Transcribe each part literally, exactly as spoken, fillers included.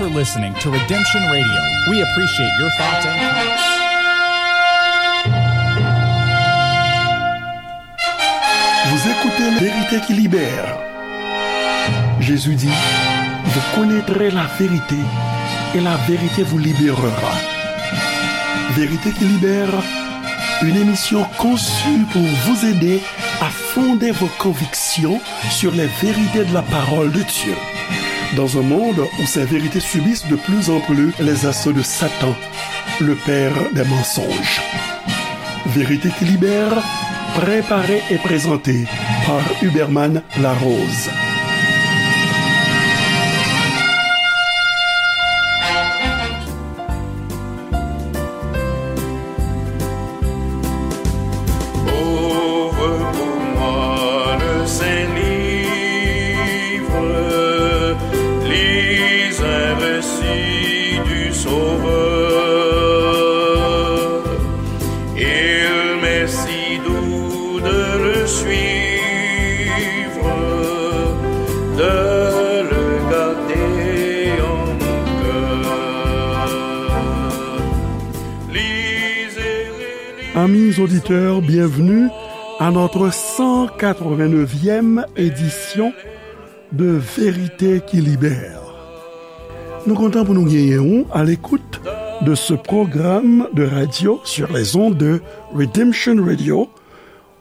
You're listening to Redemption Radio. We appreciate your thoughts and comments. Vous écoutez La Vérité qui libère. Jésus dit, vous connaîtrez la vérité et la vérité vous libérera. Vérité qui libère, une émission conçue pour vous aider à fonder vos convictions sur les vérités de la parole de Dieu. Dans un monde où ces vérités subissent de plus en plus les assauts de Satan, le père des mensonges. Vérité qui libère, préparée et présentée par Huberman Larose. Ouvre pour moi le saint livre, lis un récit du Sauveur. Il m'est si doux de le suivre, de le garder en mon cœur. Amis auditeurs, bienvenue à notre cent quatre-vingt-neuvième édition de Vérité qui libère. Nou kontan pou nou genyen ou à l'écoute de ce programme de radio sur les ondes de Redemption Radio,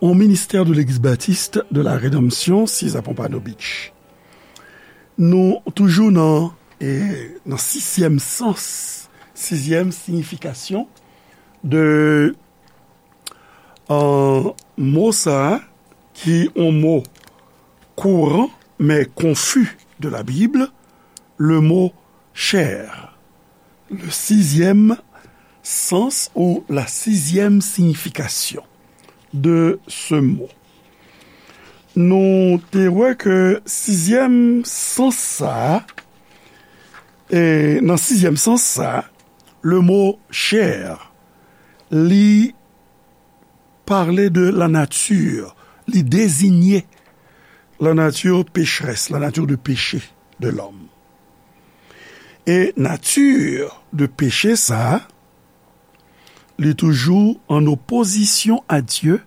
au ministère de l'Église baptiste de la Rédemption, Sis à Pompano Beach. Nou toujou nan, e, nan sizyèm sans, sizyèm siyifikasyon de, euh, mo sa a, ki yon mo kouran, men konfi de la Bible, le mot chair. Le sixième sens ou la sixième signification de ce mot. Nou te wè ke sizyèm sans sa a, e nan sizyèm sans sa a, le mot chair, li pale de la nature, li deziye la nature pécheresse, la nature de péché de l'homme. E nati de peche sa a, li toujou an opozisyon a Dye,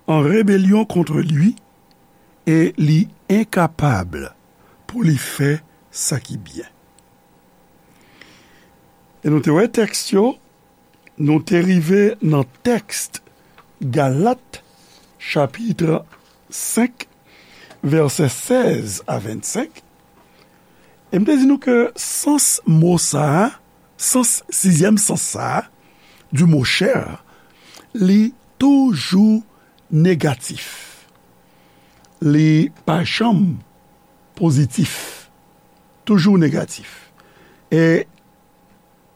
an rebelyon kont li, e li enkapab pou li fè sa ki byen. E nou te wè tèks yo, nou te rive nan tèks Galat, chapit senk, vèsè sèz a vennsenk. E m te di nou ke sans mo sa a, sans, sizyèm sans sa a, du mot chair, li toujou negatif. Li pa janm pozitif. Toujou negatif. E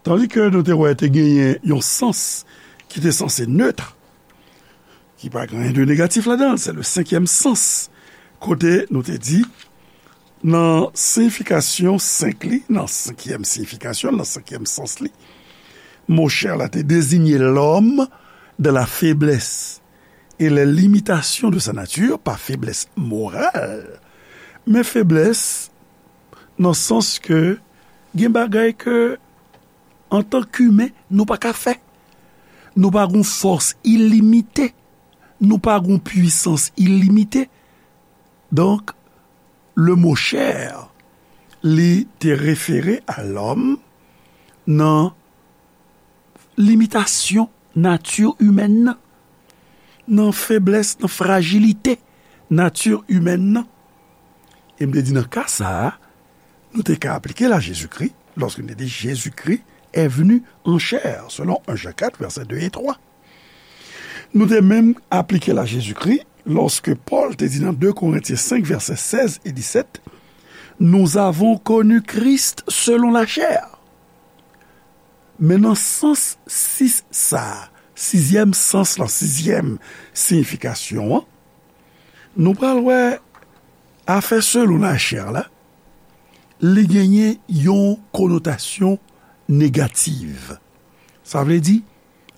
tandi ke nou te wè te genyen yon sans ki te sanse neutre, ki pa gen anyen de negatif ladan l, se le cinquième sens. Kote nou te di, nan siyifikasyon senk li, nan senkyèm siyifikasyon, nan senkyèm sans li, mo chair la te désigner l'homme dans la faiblesse et les limitations de sa nature, pa feblès moral, men feblès nan sans ke gen bagay ke, antan k imen, nou pa ka fè. Nou pa gon fòs ilimite. Nou pa gon pwisans ilimite. Donk, le mot chair, li te refere a lòm nan limitasyon nati imèn nan, nan feblès, nan frajilite nati imèn nan. E m te di nan ka sa a, nou te ka aplike l a Jezikri, lòske nou te di Jezikri est venu en chair, selon un Jean quatre, vèsè de e twa. Nou te menm aplike l a Jezikri, lòske Pòl te di nan de Korentyen senk, vèsè sèz e disèt, nous avons connu Christ selon la chair. Men nan sans sis sa a, sizyèm sans lan, sizyèm siyifikasyon an, nou pral wè afè selon lachè la, li genyen yon konotasyon negatif. Sa vle di,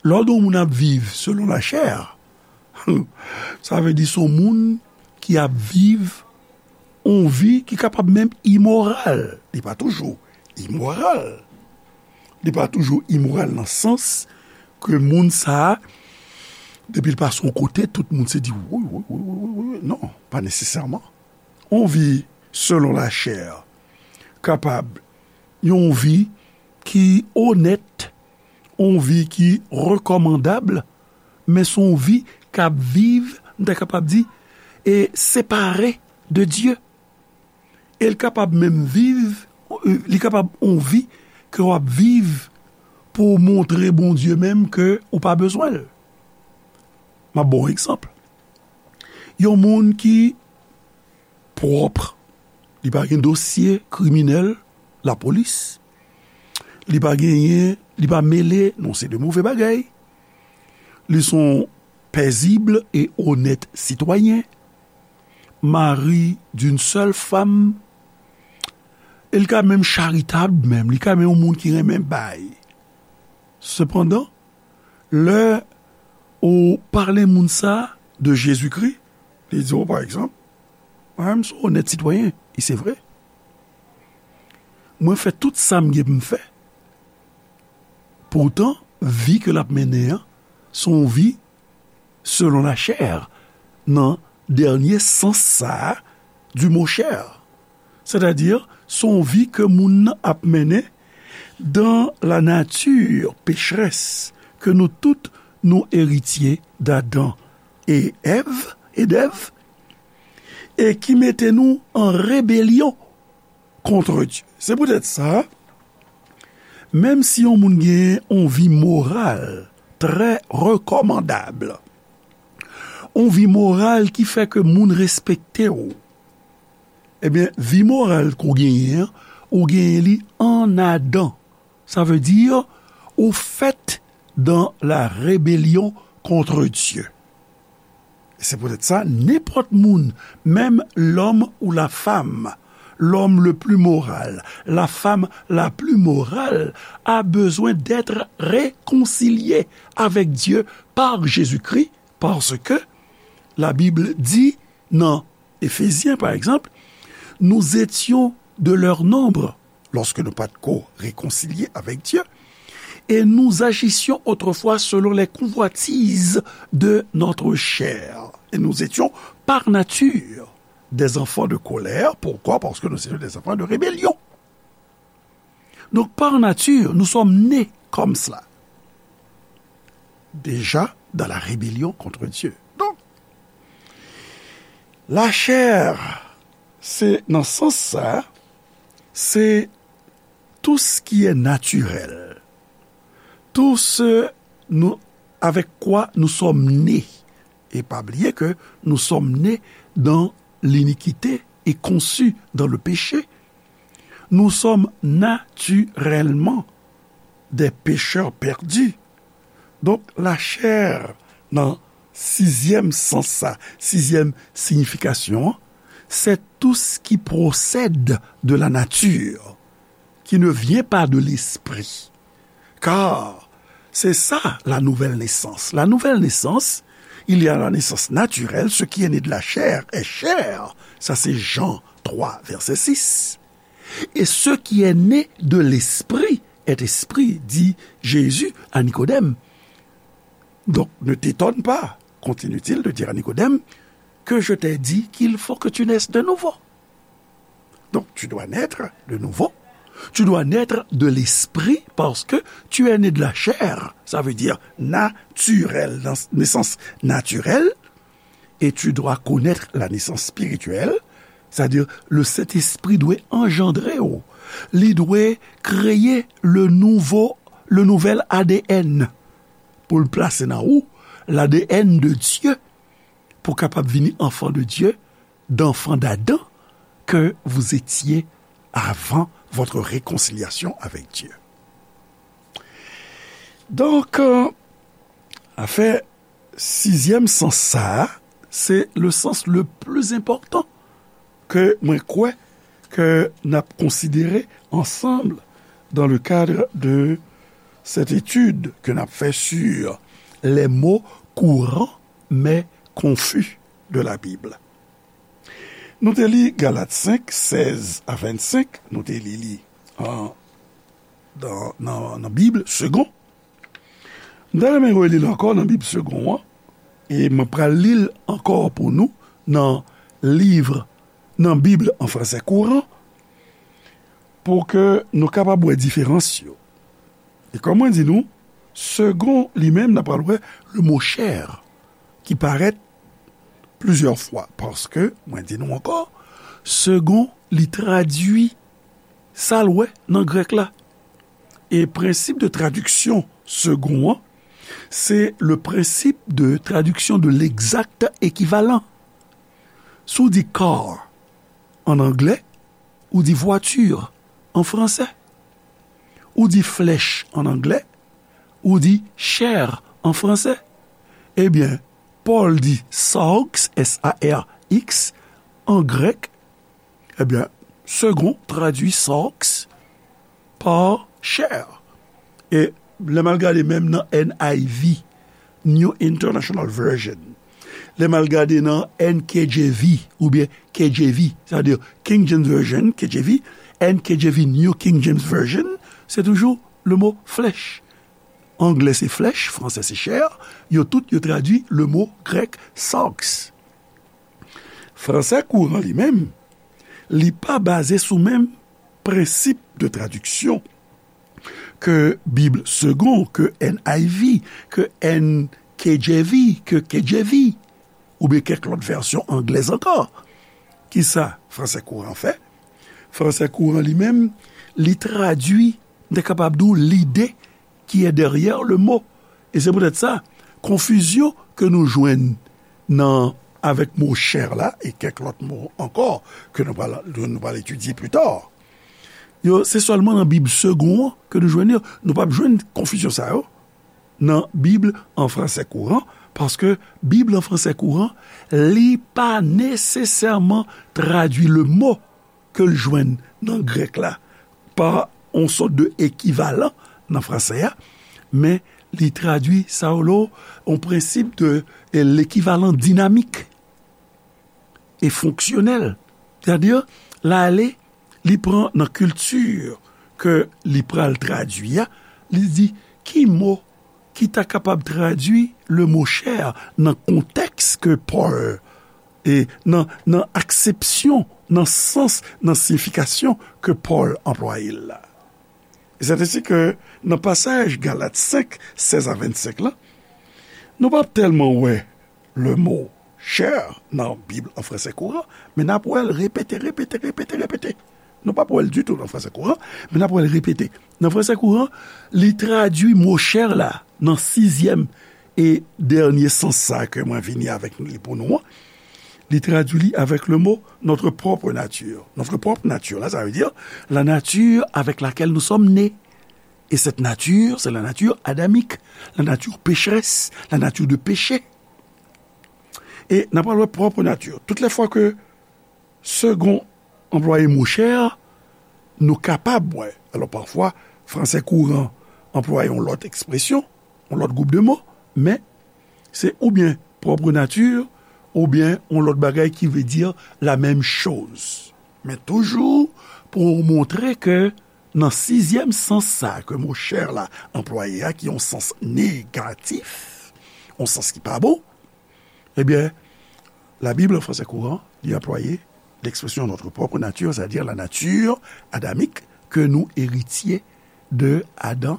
lè w di yon moun ap viv selon lachè, sa vle di se yon moun ki ap viv yon vi ki kapab menm imoral. Li pa toujou imoral. Li pa toujou imoral nan sans ke moun sa a, depi l pase yon kote, tout moun se di, "Woy, woy, woy, woy, woy, woy." Non, pa nesesèman. Yon vi selon lachè kapab yon vi ki onèt, yon vi ki rekòmandab, men se yon vi k ap viv, m ta kapab di, e separe de Dye. E l kapab menm viv, li kapab yon vi ke w ap viv pou w montre Bondye menm ke ou pa bezwen l. M ap ba w yon egzanp. Yon moun ki pwòp, li pa gen dosye kriminèl lapolis, li pa genyen, li pa mele nan se de move bagay, li se yon pèzib e onèt sitwayen, mari d'une seule femme, e l ka menm charitab menm, li ka menm yon moun ki renmen bay. Sepandan, lè ou pale moun sa de Jezikri, li di w, pa egzanp, "Mwen menm se onèt sitwayen, e se vre. Mwen fè tout sa m gen pou m fè." Poutan, vi ke l ap mennen an, se yon vi selon lachè, nan dènye sans sa a du mo chè. Sètadi, se yon vi ke moun nan ap mennen dans la nature pécheresse ke nou tout nou eritye d'Adan e Èv, e d'Èv, e ki mete nou an rebelyon kont Dye. Se poutèt sa, menm si yon moun gen yon vi moral trè rekòmandab, yon vi moral ki fè ke moun respekte w, ebyen, vi moral ke w genyen an, ou genyen li an Adan. Sa vle di, ou fèt dans la rébellion contre Dieu. E se poutèt sa, nenpòt moun, menm l'homme ou la femme, l'homme le plus moral, la femme la plus morale, a besoin d'être réconcilié avec Dieu par Jésus-Christ, parce que la Bible dit nan Efezyen, pa egzanp, nous étions de leur nombre lorsque nous pas ko réconciliés avec Dieu, et nous agissions autrefois selon les convoitises de notre chair. Et nous étions par nature des enfants de colère. Pourquoi? Parce que nous étions des enfants de rébellion. Donc, par nature, nous sommes nés comme cela. Déjà dans la rébellion contre Dieu. Donc, la chair, se nan sans sa, se tout ce qui est naturel, tout ce nous, avec quoi nous sommes nés. Et pas oublier que nous sommes nés dans l'iniquité et conçus dans le péché. Nous sommes naturellement des pécheurs perdus. Donk, lachè, nan sizyèm sans sa, sizyèm siyifikasyon an, c'est tout ce qui procède de la nature, qui ne vient pas de l'esprit. Car c'est ça la nouvelle naissance. La nouvelle naissance, il y a la naissance naturelle, ce qui est né de la chair est chair. Ça, c'est Jean trois, verset six. Et ce qui est né de l'esprit est esprit, dit Jésus à Nicodème. Donc, ne t'étonne pas, continue-t-il de dire à Nicodème, que je t'ai dit qu'il faut que tu naisses de nouveau. Donc, tu dois naître de nouveau. Tu dois naître de l'esprit parce que tu es né de la chair. Ça veut dire naturel, dans naissance naturelle. Et tu dois connaître la naissance spirituelle, c'est-à-dire le Saint-Esprit dwe anjandre w. Li dwe kreye le nouveau, le nouvel A D N pou l plase nan ou, l'A D N de Dieu, pou kapab vini enfant de Dieu, d'enfant d'Adam que vous étiez avant votre réconciliation avec Dieu. Donk, euh, afè sizyèm sans sa a, se le sans le plus important ke mwen kwè ke n ap konsidere ansanm dans le cadre de cette étude que n ap fè sur les mots courants mais confus de la Bible. Nou te li Galat senk, sèz a vennsenk, nou te li li an nan, nan, nan Bib Segond. M ta renmen reli l ankò nan Bib Segond an, e mwen pral li l ankò pou nou nan liv, nan Bib an fransè kouran, pou ke nou kapab wè diferans yo. E kòm mwen di nou, Segond li menm, n ap pral wè le mo chè ki parèt plizyè fwa, paske, mwen di nou ankò, Segond li tradui sa l wè nan grèk la. E prensip de tradiksyon Segond an, se le principe de traduction de l'exact équivalent. Si w di car an anglè, ou di voiture an fransè. Ou di flèch an anglè, ou di chair an fransè. Ebyen, Pòl di sarx, S A R X, an grèk. Ebyen, Segond tradui sarx pa chair. E lè m al gade menm nan N I V, New International Version, lè m al gade nan N K J V oubyen K J V, sa vle di King James Version, K J V, N K J V, New King James Version, se toujou le mo flèch. Anglè se flèch, fransè se chair, yo tout yo tradui le mo grèk sarx. Fransè kouran li menm, li pa baze sou menm prensip de tradiksyon ke Bib Segond, ke N I V, ke N K J V, ke K J V, oubyen kèk lòt vèsyon anglèz ankò. Kisa fransè kouran fè? Fransè kouran li menm, li tradui, m te kapab di w, lide qui est derrière le mot. E se poutèt sa, konfizyon ke nou jwenn nan, avèk mo chair la, e kèk lòt mo ankò ke nou pral, nou pral etidye pli ta, yo, se sèlman nan Bib Segond an ke nou jwenn yo. Nou p ap jwenn konfizyon sa yo nan Bib an fransè kouran, paske Bib an fransè kouran, li pa nesesèman tradui le mo ke l jwenn nan grèk la pa yon sòt de ekivalan nan fransè a, men li tradui sa yo, yon prensip de, e, lekivalan dinamik e fonksyonèl. Sètadi, l ale, li pran nan kilti ke li pral tradui a, li di, ki mo ki ta kapab tradui le mo chair nan kontèks ke Pòl, e nan, nan aksepsyon, nan sans, nan siyifikasyon ke Pòl anplwaye l la. E sètadi ke nan pasaj Galat senk, sèz a vennsenk la, nou p ap tèlman wè le mo chair nan Bib an fransè kouran, men n ap wè l repete, repete, repete, repete. Nou p ap wè l ditou nan fransè kouran, men n ap wè l repete. Nan fransè kouran, li tradui mo chair la nan sizyèm e dènye sans sa ke mwen vini avèk li pou nou an. Li tradui li avèk le mo notre propre nature. Notre propre nature la, sa vle di la nature avec laquelle nous sommes nés. Et cette nature, c'est la nature adamique, la nature pécheresse, la nature de péché. E n ap pral wè propre nature. Tout lè fwa ke Segond anplwaye mo chair, nou kapab wè. Alò, pafwa, fransè kouran anplwaye yon lòt ekspresyon, yon lòt gwoup de mo, men se oubyen propre nature, oubyen yon lòt bagay ki vle di la menm choz. Men toujou pou montre ke nan sizyèm sans sa ke mo chair la anplwaye a, ki yon sans negatif, yon sans ki pa bon, ebyen, Labib an fransè kouran, li anplwaye l'expression notre propre nature, c'est-à-dire la nature adamique que nous héritiers de Adam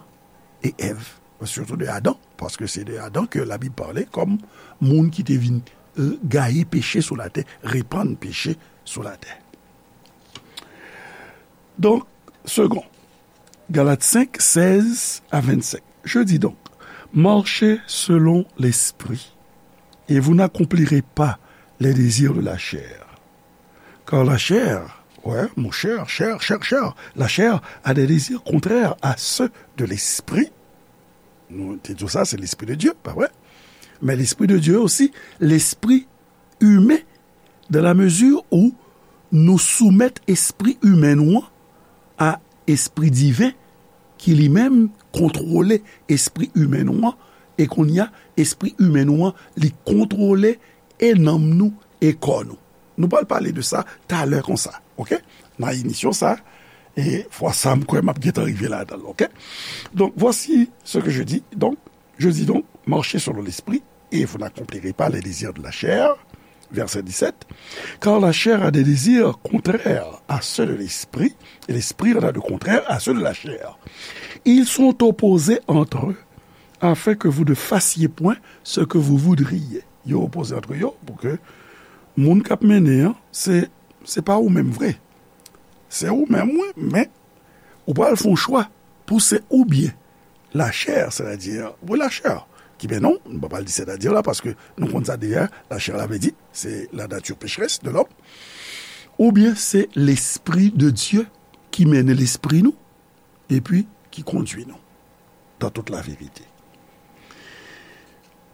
et Èv. Surtout de Adam, paske se de Adam ke Labib pale kòm moun ki te vin, euh, gaye peche sou latè, repann peche sou latè. Donk, Segond, Galates cinq, seize à vingt-cinq. Je dis donc, marchez selon l'esprit, et vous n'accomplirez pas les désirs de la chair. Car la chair, ouais, mon cher, cher, cher, cher, la chair a des désirs contraires à ceux de l'esprit. Nou te di sa, se l'esprit de Dieu, pa vre? Men l'esprit de Dieu aussi, l'esprit humain, dans la mesure où nou soumèt espri imen nou an a espri diven ki li menm kontwole espri imen nou an, e kounye a, espri imen nou an, li kontwole e nanm nou e kò nou. Nou pral pale de sa talè konsa, oke? Nan emisyon sa, E fwa sa, m kwè m ap gentan rive ladan l, oke? Donc, voici ce que je dis. Donc, je dis donc, marchez selon l'esprit, et vous n'accomplirez pas les désirs de la chair. Verset dix-sept. Car la chair a des désirs contraires à ceux de l'esprit, et l'esprit en a de contraires à ceux de la chair. Ils sont opposés entre eux, afin que vous ne fassiez point ce que vous voudriez. Yo opoze antre yo pou ke moun k ap mennen an, se, se pa ou menm vre. Se ou menm, wi, men ou pral fè yon chwa pou se oubyen lachè, sètadi, wi, lachè, ki, men non, nou pa pral di sètadi la, paske nou konn sa deyè, lachè la vle di, se la nature pécheresse de l'homme, oubyen se Lespri de Dye ki mennen lespri nou, epi ki kondui nou dans toute la vérité.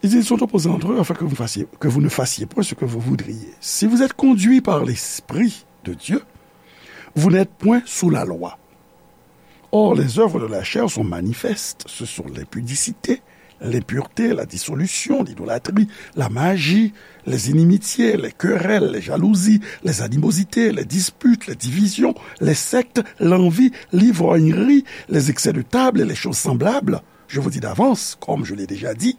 Ils sont opposés entre eux afin que vous fassiez, que vous ne fassiez point ce que vous voudriez. Si vous êtes conduits par l'Esprit de Dieu, vous n'êtes point sous la loi. Or, les œuvres de la chair sont manifestes. Ce sont l'impudicité, l'impureté, la dissolution, l'idolâtrie, la magie, les inimitiés, les querelles, les jalousies, les animosités, les disputes, les divisions, les sectes, l'envie, l'ivrognerie, les excès de table et les choses semblables. Je vous dis d'avance, comme je l'ai déjà dit,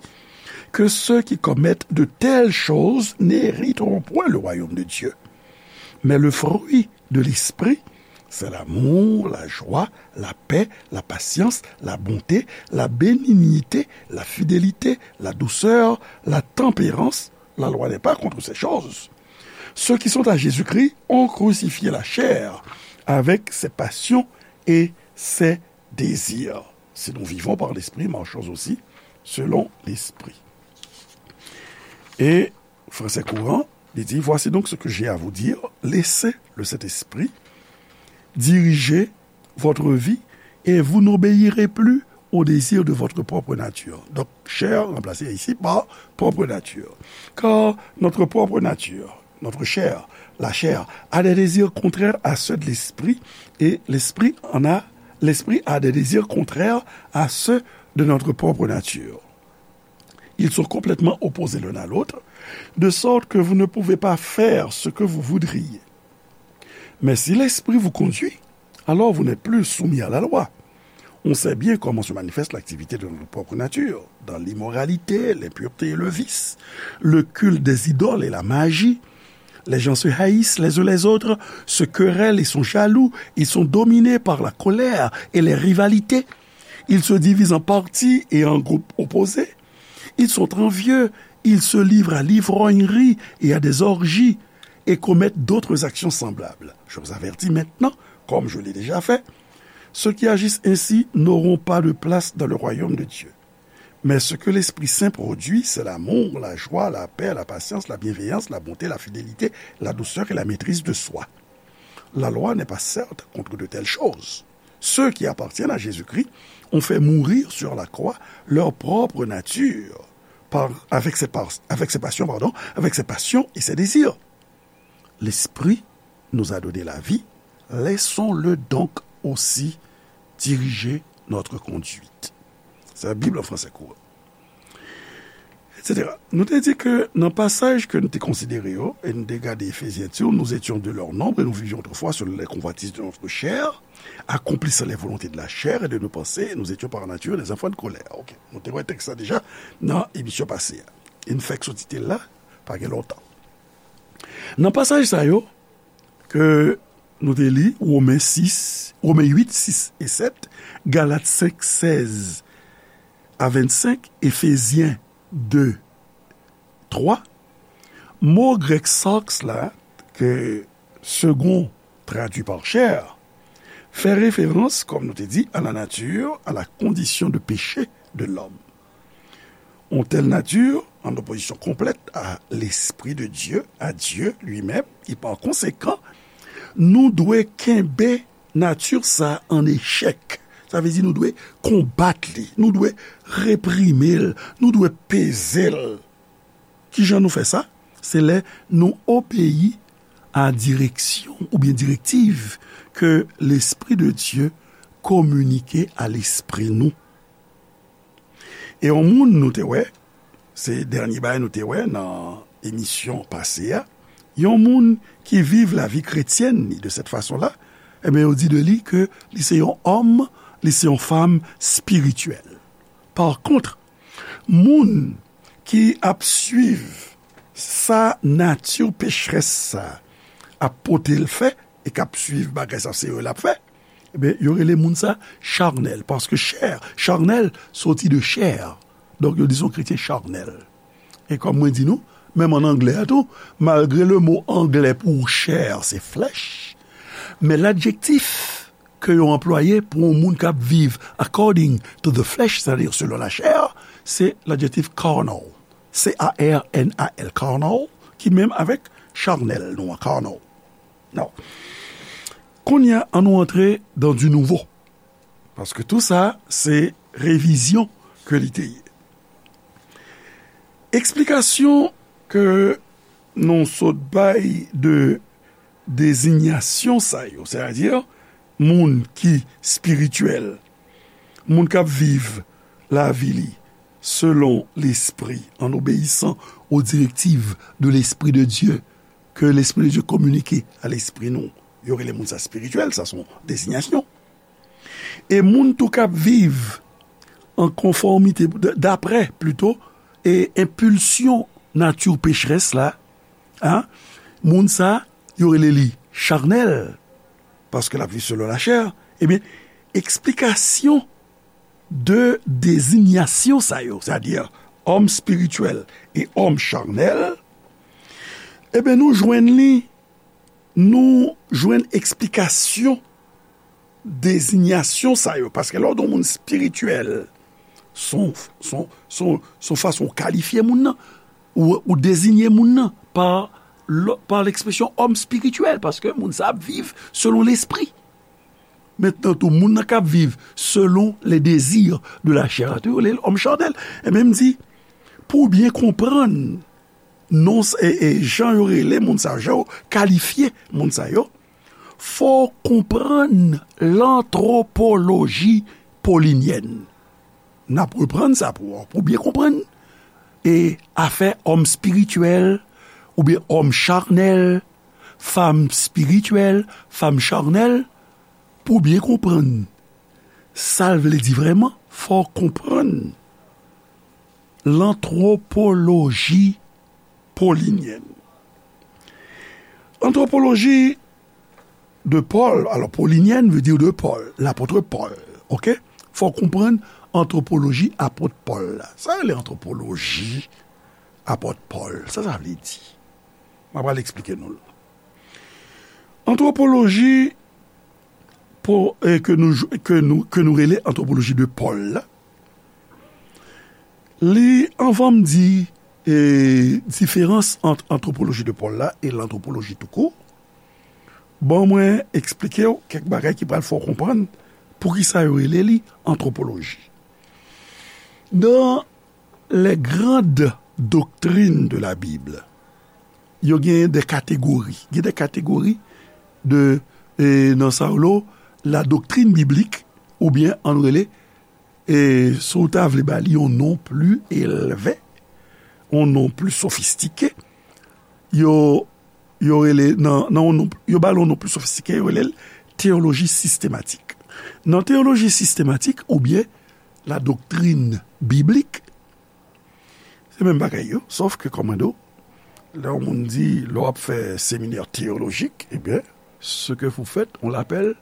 que ceux qui commettent de telles choses n'hériteront point le royaume de Dieu. Mais le fruit de l'esprit, c'est l'amour, la joie, la paix, la patience, la bonté, la bénignité, la fidélité, la douceur, la tempérance. La loi n'est pas contre ces choses. Ceux qui sont à Jésus-Christ ont crucifié la chair avec ses passions et ses désirs. Si nous vivons par l'Esprit, marchons aussi selon l'Esprit. Et Français courant, il dit, voici donc ce que j'ai à vous dire, laissez le Saint-Esprit diriger votre vie et vous n'obéirez plus au désir de votre propre nature. Donc, chair remplacée ici par propre nature. Car notre propre nature, notre chair, la chair, a des désirs contraires à ceux de l'esprit et l'esprit en a, l'esprit a des désirs contraires à ceux de notre propre nature. Ils sont complètement opposés l'un à l'autre, de sorte que vous ne pouvez pas faire ce que vous voudriez. Mais si l'Esprit vous conduit, alors vous n'êtes plus soumis à la loi. On sait bien comment se manifeste l'activité de notre propre nature, dans l'immoralité, l'impureté et le vice, le culte des idoles et la magie. Les gens se haïssent les uns les autres, se querellent et sont jaloux, ils sont dominés par la colère et les rivalités. Ils se divisent en partis et en groupes opposés. Ils sont envieux, ils se livrent à l'ivrognerie et à des orgies et commettent d'autres actions semblables. Je vous avertis maintenant, comme je l'ai déjà fait, ceux qui agissent ainsi n'auront pas de place dans le royaume de Dieu. Mais ce que l'Esprit Saint produit, c'est l'amour, la joie, la paix, la patience, la bienveillance, la bonté, la fidélité, la douceur et la maîtrise de soi. La loi n'est pas certes contre de telles choses. Ceux qui appartiennent à Jésus-Christ ont fait mourir sur la croix leur propre nature par, avec ses, par, avec ses passions, pardon, avec ses passions et ses désirs. L'Esprit nous a donné la vie, laissons-le donc aussi diriger notre conduite. C'est la Bible en français courant. Et cetera. Nou te di ke nan pasaj ke nou te konsidere yo, e nou te gade Efezyen di, nous étions de leur nombre et nous vivions autrefois selon les convoitises de notre chair, accomplissant les volontés de la chair et de nos pensées, et nous étions par nature des enfants de colère. Ok. Nou te wè tèks la deja nan emisyon pase a. E nou fèk soti te la, pa gen lontan. Nan pasaj sa yo, ke nou te li, Women sis, Women uit, sis e sèt, Galat senk, sèz a vennsenk, Efezyen de, twa, mo grèk sarx la, ke Segond traduit par chair, fè referans, kòm nou te di, à la nature, à la condition de péché de l'homme. Yon tèl nati an opozisyon konplèt a Lespri de Dye, a Dye li menm, e pa konsekan, nou dwe kenbe nati sa an echèk. Sa vle di nou dwe konbat li, nou dwe reprime l, nou dwe peze l. Kijan nou fè sa? Se lè nou obeyi a direksyon oubyen direktiv ke Lespri de Dye kominike a lespri nou. E yon moun nou te wè, se dènye bagay nou te wè nan emisyon pase a, yon moun ki viv lavi kretyèn li de sèt fason la, Ebyen, yo di de li ke li se yon òm, li se yon fanm espirityèl. Pa kont, moun ki ap swiv sa nati pecherès sa ap pote l fè, e k ap swiv bagay sa se yo l ap fè, ebyen, yo rele moun sa charnèl, paske chè, charnèl soti de chè. Donk, yo di se yon kretyen charnèl. E kòm mwen di nou, menm an anglè a tou, malgre le mo anglè pou chè se flesh, men ladjektif ke yo anplwaye pou yon moun k ap viv according to the flesh, sètadi selon lachè, se ladjektif carnal. C A R N A L, carnal, ki menm avèk charnèl nou an, carnal. Non. Kounye a, ann nou antre dans du nouveau. Paske tou sa, se revizyon ke li te ye. Eksplikasyon ke nou sot bay de dezinyasyon sa yo, sètadi moun ki espirityèl, moun k ap viv lavi li selon Lespri, en obéissant aux directives de l'Esprit de Dieu, ke Lespri de Dye kominike a lespri nou, yo rele moun sa espirityèl, sa se yon dezinyasyon. E moun tou k ap viv an konfòmite, d-, daprè, plito, e enpilsyon nati pecherès la, a, moun sa, yo rele li charnèl, paske l ap viv selon lachè, ebyen, eksplikasyon de dezinyasyon sa yo, sètadi òm espirityèl e òm charnèl, ebyen, nou jwenn li, nou jwenn eksplikasyon dezinyasyon sa yo, paske lè w di yon moun espirityèl, se yon, se yon, se yon, se yon fason w kalifye moun nan, ou, ou dezinye moun nan pa, pa lekspresyon òm espirityèl, paske moun sa ap viv selon lespri. Mentnan tou, moun nan k ap viv selon le désir de la chair la, tou, yo rele l òm chanèl. Ebyen, m di, pou w byen konprann non, e, e jan yo rele moun sa yo, jan yo kalifye moun sa yo, fò w konprann lantwopoloji polinyèn. N ap reprann sa pou, pou w byen konprann. E afè òm espirityèl, oubyen òm charnèl, fanm espirityèl, fanm charnèl, pou w byen konprann sa l vle di vrèman, fò w konprann lantwopoloji polinyèn. Antwopoloji de Paul, alò, polinyèn vle di de Paul, lapòt Pòl, oke? Fò w konprann antwopoloji apòt Pòl la. Sa rele antwopoloji apòt Pòl, sa sa vle di? M ap al eksplike nou l. Antwopoloji pou, e, ke nou, ke nou, ke nou rele antwopoloji de Pòl la, li, anvan m di, e, diferans ant antwopoloji de Pòl la e lantwopoloji toukou, ban mwen eksplike w kèk bagay ki pral fè w konprann poukisa yo rele li antwopoloji. Nan les grandes doctrines de la Bible, yo gen de kategori. Gen de kategori de, e, nan sa yo rele la doctrine biblique, oubyen ann rele, e, si w ta vle ba li yon non pli elve, yon non pli sofistike, yo, yo rele, nan, nan yon non, yo ba l yon non pli sofistike, yo rele l teyoloji sistematik. Nan teyoloji sistematik, oubyen la doctrine biblique, se menm bagay yo, sòf ke, kòm mwen di w, lè yon moun di, lè w ap fè seminè teyolojik, ebyen, ce que vous faites, on l'appelle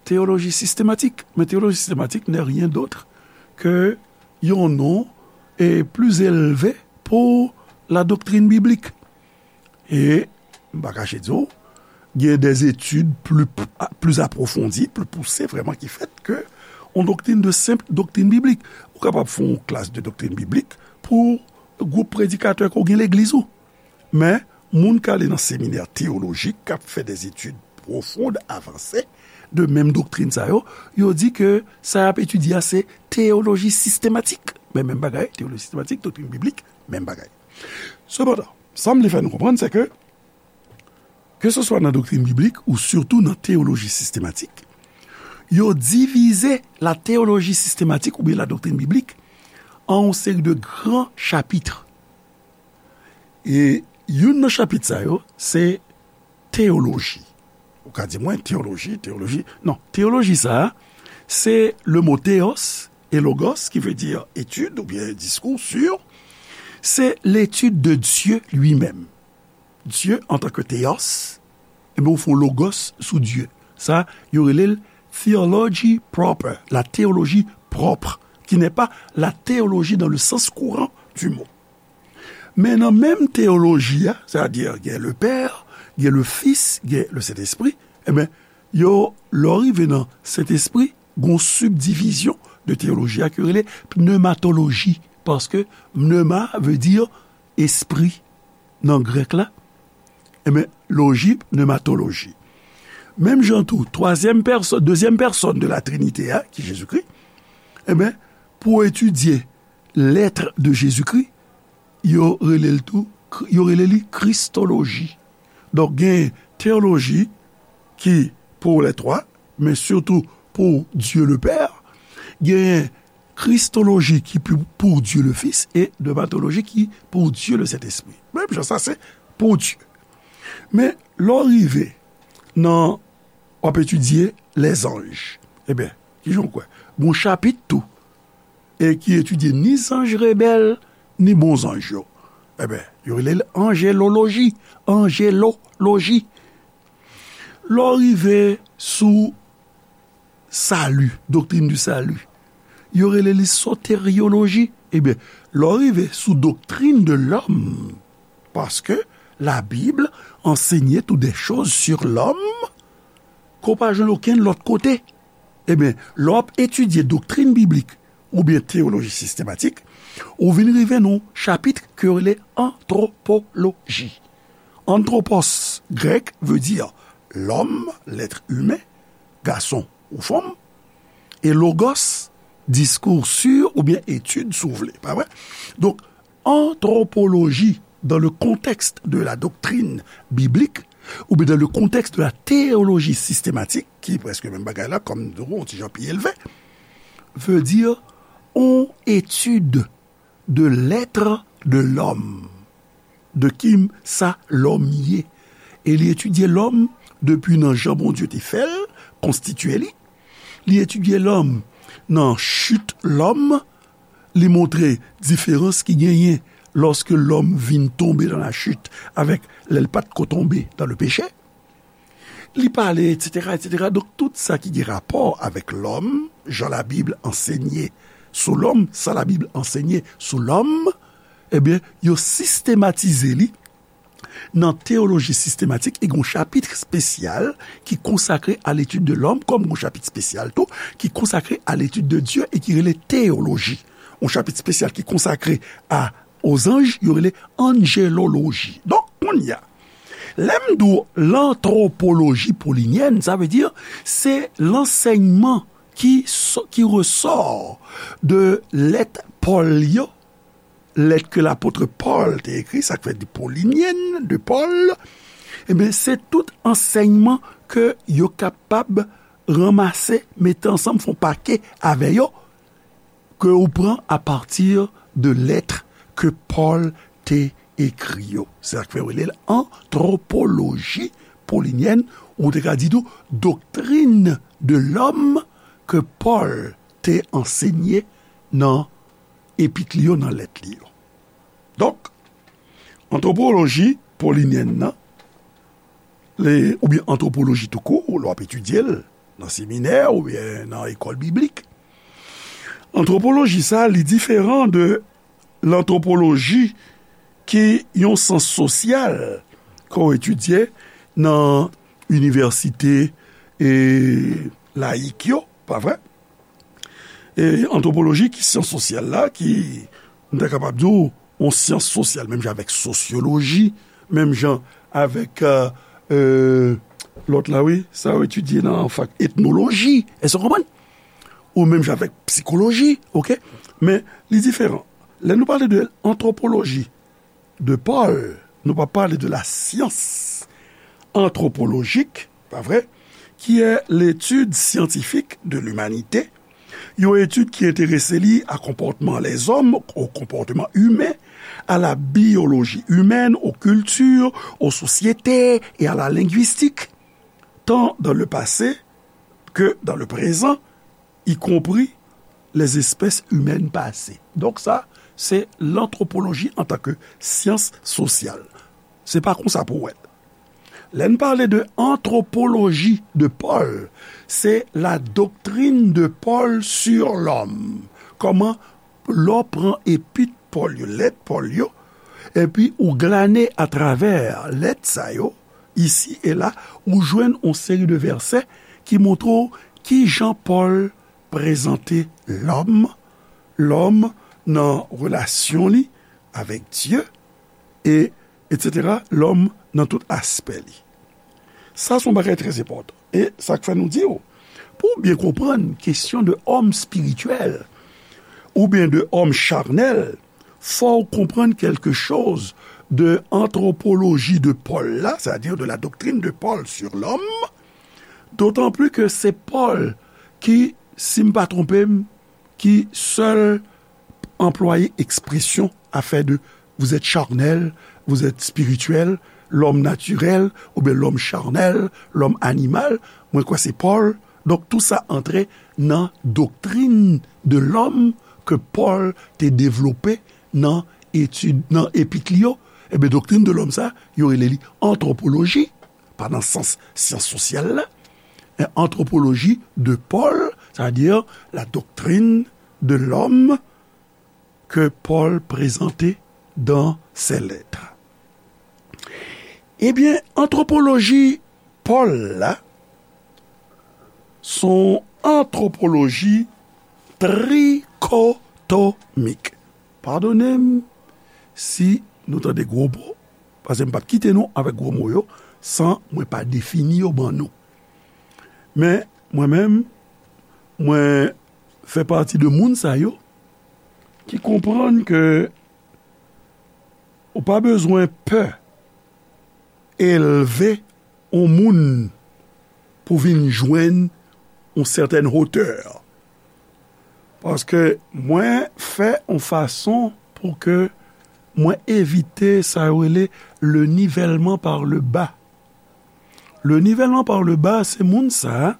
théologie systématique. Men teyoloji sistematik n'est rien d'autre que yon non, e, pli elve pou la doctrine biblique. E m pa kache di w, gen des études plus, plus approfondies, plus poussées, vraiment, ki fèt ke yon doktrin de senp doktrin biblik. Ou kapab fè yon klas de doktrin biblik pou gwoup predikatè ke w gen legliz ou. Men, moun k ale nan seminè teyolojik, k ap fè des études profondes, avancées, de menm doktrin sa yo, yo di ke sa y ap etidye a se teyoloji sistematik. Men menm bagay, teyoloji sistematik, doktrin biblik, menm bagay. Sepandan, sa m vle fè nou konprann, se ke, keseswa nan doktrin biblik ou sitou nan teyoloji sistematik, yo divize la teyoloji sistematik oubyen la doktrin biblik an yon seri de gran chapit. E youn nan chapit sa yo, se teyoloji. Ou ka di mwen, teyoloji, teyoloji. Non, teyoloji sa a, se le mo theos e logos, ki vle di etid oubyen diskou sur. Se l'étude de Dieu lui-même. Dieu en tant que théos, e ben, ou fè logos sou Dye. Sa, yo rele l theology proper, la théologie propre, qui n'est pas la théologie dans le sens courant du mot. Men nan menm teyoloji a, sètadi gen le Père, gen le Fils, gen le Saint-Esprit, e ben, yo, lè w rive nan Sentespri, gen yon sibdivizyon de teyoloji a ki rele pnematoloji, paske pneuma vle di espri nan grèk la, e ben, loji, pnematoloji. Menm jan tou, twazyèm pèsòn, dezyèm pèsòn de la Trinité a, ki Jezikri, e ben, pou etidye l'être de Jésus-Christ, yo rele l tou, yo rele li kristoloji. Donk, gen teyoloji ki pour les trois, men sitou pour Dieu le Père, gen kristoloji ki pou, pour Dieu le Fils, e pnematoloji ki pour Dieu le Saint-Esprit. Menm jan sa, se pour Dieu. Men, lè w rive nan, w ap etidye lèzanj. Ebyen, kijan w kwè? Gon chapit tou, e ki etidye ni zanj rebèl, ni bon zanj yo. Ebyen, yo rele l anjeloloji. Anjeloloji. Lè w rive sou sali, doktrin di sali, yo rele li soteryoloji. Ebyen, lè w rive sou doktrin de lòm, paske Labib ansenye tou de choz sur lòm ke w pa jwenn okenn lòt kote. Ebyen, lè w ap etidye doktrin biblik oubyen teyoloji sistematik, ou vin rive nan yon chapit ke yo rele antwopoloji. Anthropos, grèk, vle di lòm, l'être humain, gason ou fanm, e logos, diskou sur oubyen etid, si w vle, pa vre? Donk, antwopoloji, dans le contexte de la doctrine biblique, oubyen dans le contexte de la théologie systématique, ki prèske menm bagay la, kòm nou di w, yon ti jan pi elve, vle di yon etid de l'être de l'homme, de ki sa lòm ye. E li etidye lòm depi nan jan Bondye te fè l, konstitye li. Li etidye lòm nan chit lòm, li montre diferans ki genyen lòske lòm vin tonbe nan la chit avèk lè l pa t ko tonbe nan le peche. Li pale, etsetera, etsetera. Donk, tout sa ki gen rapò avèk lòm, jan Labib ansenye sou lòm, sa Labib ansenye sou lòm, ebyen, yo sistematize li nan teyoloji sistematik, e gen yon chapit espesyal ki konsakre à l'étude de l'homme, kòm gen yon chapit espesyal tou ki konsakre à l'étude de Dieu e ki rele teyoloji. Yon chapit espesyal ki konsakre a, aux anges, yo rele anjeloloji. Donk, kounye a, lè m di w lantwopoloji polinyèn, sa vle di se lansèyman ki, ki resò de lèt Pòl yo, lèt ke lapot Pòl te ekri, sa k fè di polinyèn de Pòl, ebyen, se tout ansèyman ke yo kapab ranmase, mete ansanm, fè yon pake avè yo, ke ou pran apati de lèt ke Pòl te ekri yo. Se sa k fè yo rele l antwopoloji polinyèn, ou te ka di tou doktrin de lòm ke Pòl te ansenye nan epit li yo, nan lèt li yo. Donk, antwopoloji polinyèn nan, le, oubyen antwopoloji toukou, lè w ap etidye l nan seminè oubyen nan ekòl biblik, antwopoloji sa, li diferan de lantwopoloji ki yon syans sosyal ke w etidye nan inivèsite e layik yo, pa vre? E antwopoloji ki syans sosyal la, ki, m ta kapab di w, yon syans sosyal, menm jan avèk sosyoloji, menm jan avèk, euh, euh, lòt la, wi, sa yo etidye nan fak etnoloji, èske w konprann? Ou menm jan avèk psikoloji, oke? Men, li diferan. Lè nou pale de antwopoloji de Pòl, nou pa pale de la science anthropologique, pa vre? Qui est l'étude scientifique de l'humanité, yon etid ki enterese li a konpòtman lèzòm, au comportement humain, à la biologie humaine, aux cultures, aux sociétés et à la linguistique. tant dans le passé que dans le présent, y compris les espèces humaines passées. Donk sa, se lantwopoloji antanke syans sosyal. Se pa konsa pou w wè l. Lè n pale de anthropologie de Paul, se la doctrine de Paul sur l'homme. Kòman lè w pran epit Pòl yo, lèt Pòl yo, epi ou glane atravè lèt sa yo, isi e la, ou jwenn yon seri de vèsè ki montre w kijan Pòl prezante lòm, lòm nan relasyon li avèk Dye, e, etsetera, lòm nan tout aspè li. Sa se yon bagay trè enpòtan. E sa k fè nou di w, pou w byen konprann kesyon de òm espirityèl oubyen de òm charnèl, fò w konprann kèlke choz de antwopoloji de Pòl la, c'est-à-dire de la doctrine de Paul sur l'homme, d'autant plus que se Pòl ki, si m pa twonpe m, ki sèl anplwaye ekspresyon afè de vous êtes charnel, vous êtes spirituel, l'homme naturel, oubyen l'homme charnel, l'homme animal, mwen kwè se Pòl. Donk, tou sa antre nan doktrin de lòm ke Pòl te devlope nan etid, nan epit li yo. Ebyen, doktrin de lòm sa, yo rele li antwopoloji, pa nan sans syans sosyal la, men antwopoloji de Paul, c'est-à-dire la doctrine de l'homme que Paul présentait dans ses lettres. Ebyen, antwopoloji Pòl la, se yon antwopoloji trikotomik. Padone m si nou tande gwo mo, paske m p ap kite nou avèk gwo mo yo san mwen pa defini yo ban nou. Men, mwen menm, mwen fè pati de moun sa yo ki konprann ke ou pa bezwen pè elve yon moun pou vin jwenn yon sètèn wotè. Paske mwen fè yon fason pou ke mwen evite sa yo rele le nivèlman pa le ba. Le nivèlman pa le ba, se moun sa a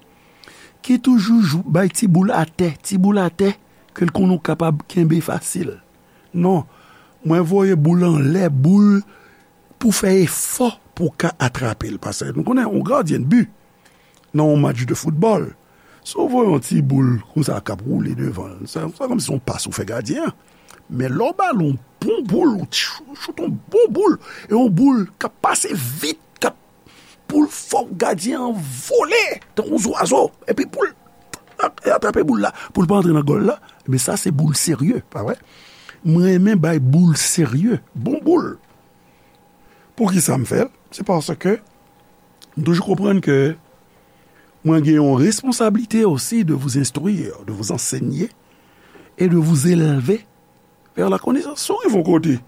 ki toujou jou, bay ti boul atè, ti boul atè, ke l konnen w kapab kenbe fasil. Non, mwen voye boul anlè, boul pou fè efò pou w ka atrape l. Paske nou konnen, yon gadyen de bi, nan yon match de foutbòl, si w voye yon ti boul konsa k ap woule devan l, sa, sa kòmsi se yon pas ou fè gadyen an. Men lè w ba l yon bon boul, ou ch-, choute yon bon boul, e yon boul k ap pase vit, k ap, pou l fè gadyen an vole tankou zwazo, epi pou l atrape boul la, pou l pa antre nan gòl la, men sa se boul serye, pa vre? Mwen renmen bay boul serye, bon boul. Poukisa m fè l? Se paske m toujou konprann ke mwen gen yon responsablite osi de vous instruire, de vous enseigner et de vous élever vers la connaissance. Si w rive yon kote,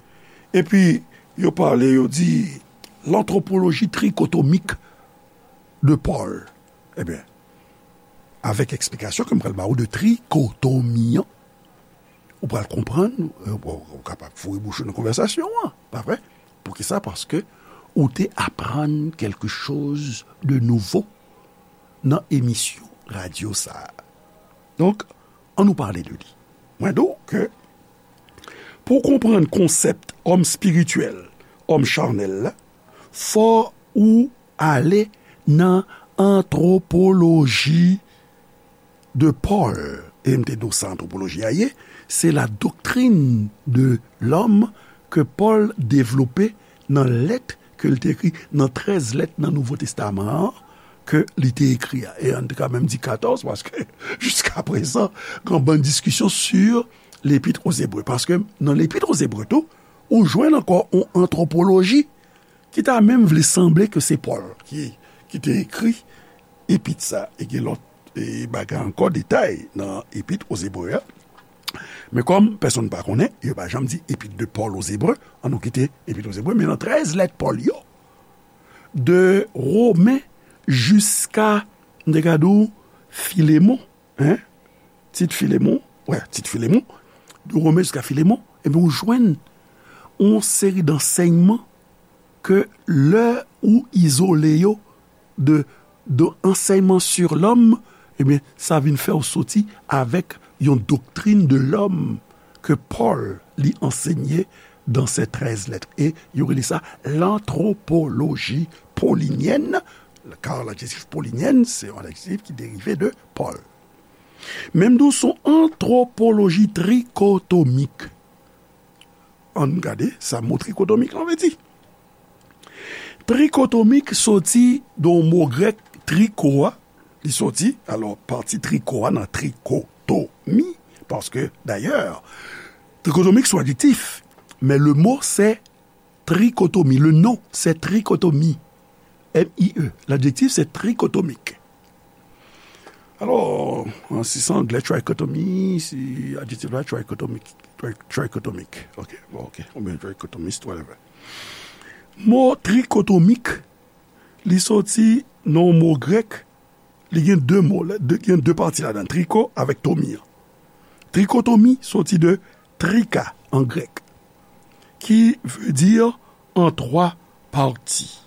epi yo pale, yo di l'anthropologie trichotomique de Paul, ebyen, avèk eksplikasyon ke m pral ba ou de trikotomi an, ou pral konprann, euh, ou, ou kapab foure bouch ou nan konvèsasyon an, pa vre? Poukisa? Paske ou te aprann quelque chose de nouveau nan emisyon radyo sa a. Donk, ann nou pale de li. Mwen di w ke pou w konprann konsèp òm espirityèl, òm chanèl la, fò ou ale nan antwopoloji de Paul. E m te di w sa antwopoloji a ye, se la doctrine de l'homme ke Pòl devlope nan lèt ke l te ekri, nan trèz lèt nan Nouvo Testaman an ke li te ekri a. E ann te ka menm di katòz, paske jiskaprezan, gen yon bann diskisyon sur l'Épître aux Hébreux. Paske nan l'Épître aux Hébreux tou, ou jwenn ankò yon antwopoloji ki ta menm vle sanble ke se Pòl ki, ki te ekri epit sa, e gen lòt, e, bagay ankò, detay nan epit aux Hébreux a. Men kòm pèsonn pa konnen, yo pa janm di epit de Paul aux Hébreux, ann nou kite epit aux Hébreux, men nan trèz lèt Pòl yo, de Women jiska, m te ka di w, Filemon, hein? Tit Filemon, wè, Tit Filemon, de Women jiska Filemon, ebyen, ou jwenn yon seri dansèyman ke lè ou izole yo de, de enseignement sur l'homme, ebyen, sa vin fè w soti avèk yon doctrine de l'homme ke Pòl li ansenye dans ses treize lettres. E yo rele sa l'anthropologie paulinienne, car l'adjectif paulinienne, c'est un adjectif qui dérive de Paul. Menm tou, son antwopoloji trikotomik. Ann gade sa mo trikotomik lan vle di. Trikotomik soti de yon mo grèk, triko a, li soti, alò, pati triko a nan trikotomi, paske, dayè, trikotomik se yon adjektif, men le mo se trikotomi, le non se trikotomi, M I E, l'adjectif se trikotomik. Alò, si se anglè, trichotomy, si adjektif la, trichotomic, tri- trichotomic, ok, bon, ok, oubyen trichotomist, whatever. Mo trikotomik, li soti nan mo grèk, li gen de mo, gen de pati ladan, triko avèk tomi an. Trikotomi soti de trika an grèk, ki vle di an twa pati.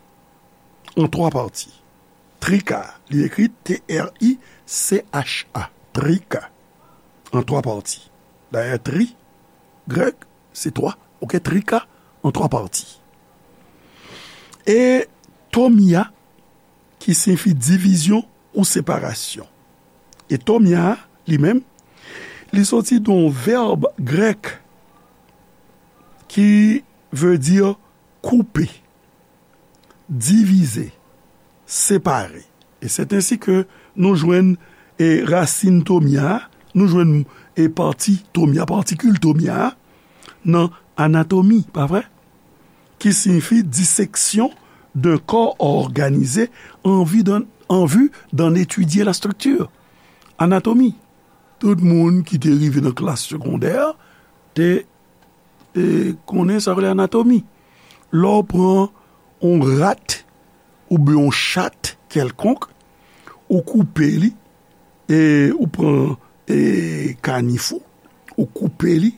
An twa pati. Trika, li ekri T R I C H A, trika, an twa pati. Dayè, tri, grèk, se twa, ok, trika, an twa pati. E tomia, ki siyifi divizyon ou separasyon. E tomia, li menm, li soti de yon vèb grèk ki vle di koupe, divize, separe. E se ensi ke nou jwenn e rasin tomia, nou jwenn e pati tomia, patikil tomia nan anatomi, pa vre? Ki siyifi disection d'un corps organisé en vue d'en, en vue d'en étudier la structure. Anatomi. Tout moun ki te rive nan klas segondè te e, konnen sa yo rele anatomi. Lè w pran yon rat oubyen yon chat kèlkonk, ou koupe li, e ou pran e, kanif ou, ou koupe li,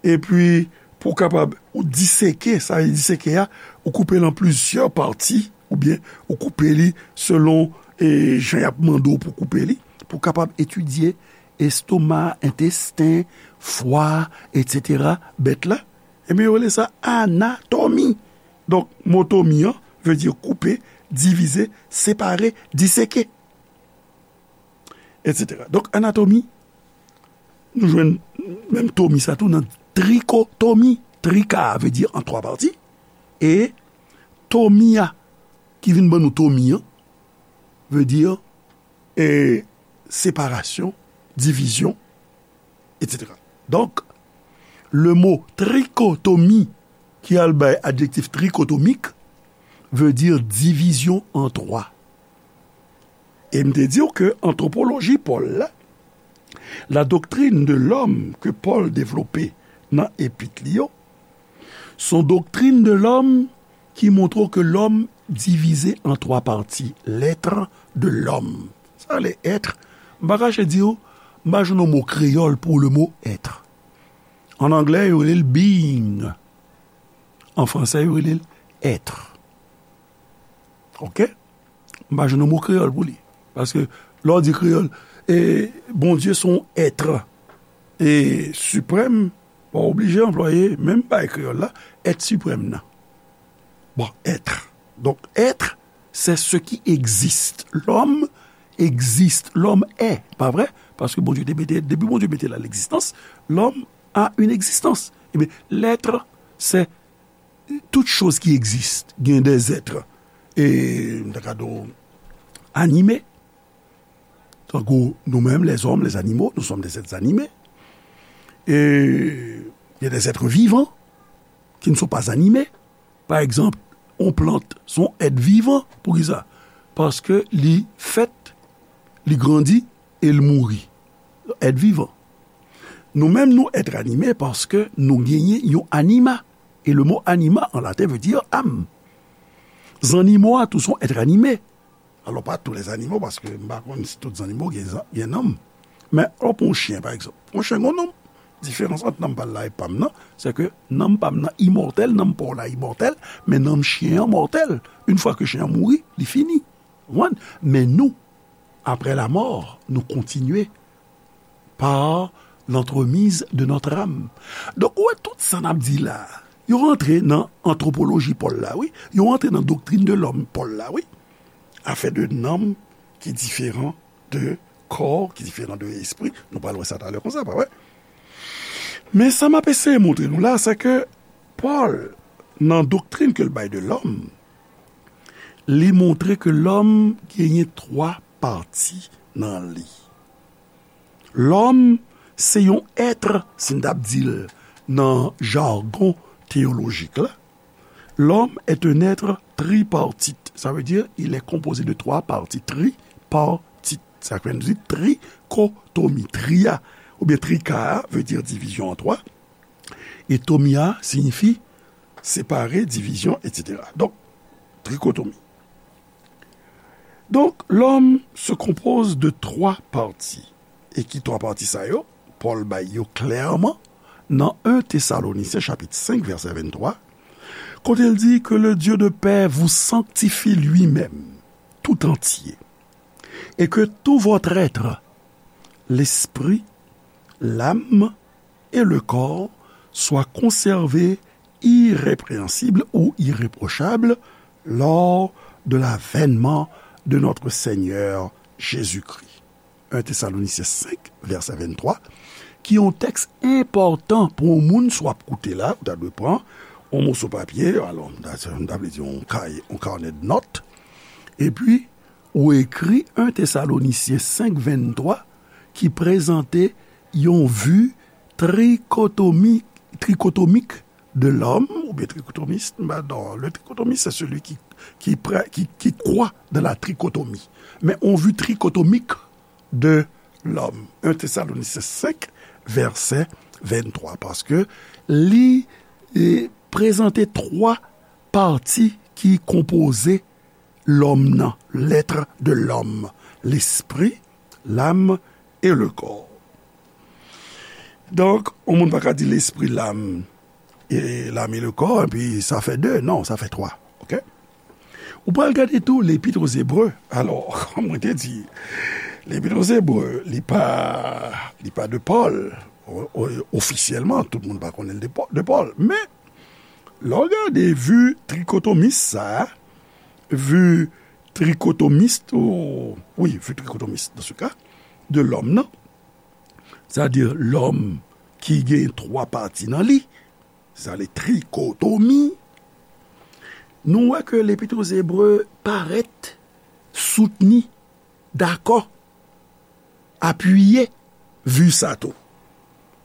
epi pou w kapab, ou diseke, sa vle diseke a, ou koupe l an plizyè pati, oubyen ou koupe li selon e, jan y ap mande w pou koupe li, pou w kapab etidye estoma, entesten, fwa, etsetera, bèt la, ebyen, yo rele sa anatomi. Donk, mo tomi an vle di koupe, divize, separe, diseke, etsetera. Donk, anatomi, nou jwenn menm tomi sa tou nan trikotomi. Trika vle di an twa pati. E tomi a, ki vin ban nou tomi an, vle di e, separasyon, divizyon, etsetera. Donk, le mo trikotomi ki al bay adjektif trikotomik vle di divizyon an twa. E m te di w ke antwopoloji Pòl la, la doctrine de l'homme ke Pòl devlope nan epit li yo, se yon doctrine de l'homme ki montre w ke lòm divize an twa pati, l'être de l'homme. Sa rele être, m pa kache di w, m pa jwenn yon mo kreyòl pou le mot être. An anglè, yo rele l being. An fransè, yo rele l être. Ok? M pa jwenn yon mo kreyòl pou li. Paske lè w di kreyòl, e, Bondye se yon être e siprèm, pa oblije anplwaye menm bagay kreyòl la, être suprême nan. Bon, être. Donk, être, c'est ce qui existe. L'homme existe. L'homme est. Pa vre? Paske Bondye te mete, depi Bondye mete la l'existence, l'homme a une existence. Ebyen, l'être, c'est toute chose qui existe. Gen des êtres, e, m ta ka di w, anime. Tankou nou menm, les hommes, les animaux, nous sommes des êtres animés. E il y a des êtres vivants qui ne sont pas animés. Pa egzanp, yon plant, se yon èt vivan. Poukisa? Paske li fèt, li grandi, e l mouri. Èt vivan. Nou menm, nou èt anime paske nou genyen yon anima. E le mo anima an laten vle di âme. Zannimo a tou se yon èt anime. Alò, pa tous les animaux, paske m pa konn si tout zannimo gen, gen nanm. Men, lè w pran yon chen, pa egzanp. Yon chen gen yon nanm. Diferans ant nanm pa l la e pa m nan, se ke nanm pa m nan imòtèl, nanm pa w la imòtèl, men nanm chen an mòtèl. Yon fwa ke chen an mouri, li fini. Konprann? Men nou, après la mort, nou kontinye par l'entremise de notre âme. Donk, ou wè tout sa n ap di la, yo rantre nan antwopoloji Pòl la, wi. Yo rantre nan doktrin de lòm Pòl la, wi. Afè de nanm ki diferan de kò, ki diferan de espri. Nou pral wè sa talè konsa, pa vre? Men sa m ap eseye montre nou la, se ke Pòl, nan doktrin ke l bay de lòm, li montre ke lòm genyen twa pati nan li. Lòm se yon èt, si n t ap di l nan jagon teyolojik la, l'homme est un être tripartite. Ça veut dire, il est composé de trois parties. Tripartite. Sa vle di trikotomi. Tri a, oubyen trika a, veut dire division en trois. E tomi a siyifi séparer, division, et cetera. Donk, trikotomi. Donk, lòm se konpoze de twa pati. E ki twa pati sa yo? Pòl bay yo klèman nan en Tesalonisyen chapit senk, vèsè venntwa, kote l di, que le Dieu de paix vous sanctifie lui-même, tout entier, et que tout votre être, l'esprit, l'âme et le corps, soit conservé irrépréhensible ou irréprochable lors de l'avènement de notre Seigneur Jésus-Christ. En Tesalonisyen senk, vèsè venntwa, ki yon tèks enpòtan pou yon moun, si w ap koute la, ou ta dwe pran yon moso papye, alò, m ta, m ta vle di yon kay, yon kanè de nòt, epi ou ekri en Tesalonisyen senk venntwa ki prezante yon vi trikotomi, trikotomik de l'homme, oubyen trikotomist, m pa, non, le tricotomiste, c'est celui qui, qui, prè- qui, qui croit dans la trichotomie. Men on vi trikotomik de l'homme. En Tesalonisyen senk, vèsè venntwa, paske li e, prezante twa pati ki konpoze lòm nan, l'être de l'homme, l'esprit, l'âme et le corps. Donk, yon moun pa ka di l'esprit, l'âme et l'âme et le corps, epi sa fè de. Non, sa fè twa. Oke? Ou pral gade tou Lepit Ozebre. Alò, kòm mwen te di, Lepit Ozebre, li pa, li pa de Pòl. O- o- ofisyèlman, tout moun pa konnen l de Pò- de Pòl. Men, lè w gade vi trikotomis sa a, vi trikotomist, ou, wi, vi trikotomist, dans ce cas, de l'homme nan, sètadi lòm ki gen twa pati nan li, sa le trikotomi, nou wè ke Lepit Ozebre parèt soutni, dakò, apiye vi sa tou.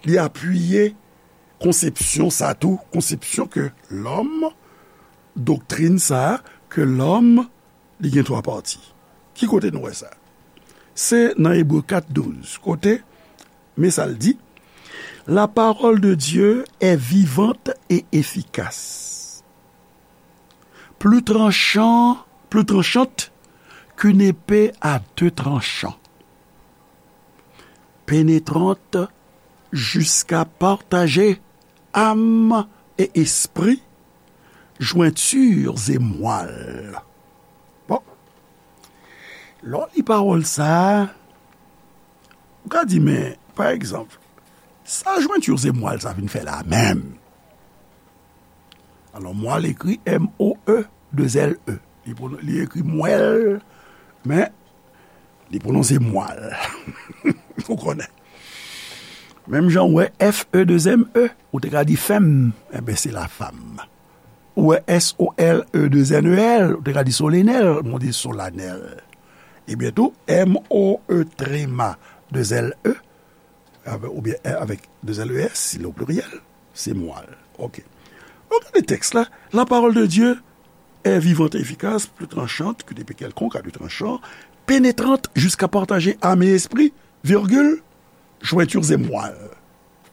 Li apiye konsepsyon sa tou, konsepsyon ke lòm, doktrin sa, ke lòm, li gen twa pati. Ki kote nou wè sa? Se nan Ebre kat douz, kote, men sa l di, La parole de Dieu est vivante et efficace, plus tranchant, plus tranchante qu'une épée à deux tranchants, pénétrante jusqu'à partager âme et esprit, jointures et moelle. Bon. Lè w li pawòl sa a, ou ka di, men, pa egzanp, sa jointures et moelle sa vin fè la menm? Alò, moelle ekri M O E, de L E. Li pwonon- li ekri mwèl, men li pwononse mwal. Ou konnen. Menm jan w wè F E de M E, ou te ka di fèm, enben se la fam. Ou wè S O L E de N E L, ou te ka di solenèl, men w di solanèl. Ebyen tou, M O E trema de L E, avè- oubyen avèk de L E S, si le pluriel, se mwal. Oke. Donk, gade tèks la. La parole de Dieu est vivante et efficace, plus tranchante qu'une épée quelconque à deux tranchants, pénétrante jusqu'à partager âme et esprit, virgule, jointures et moelle.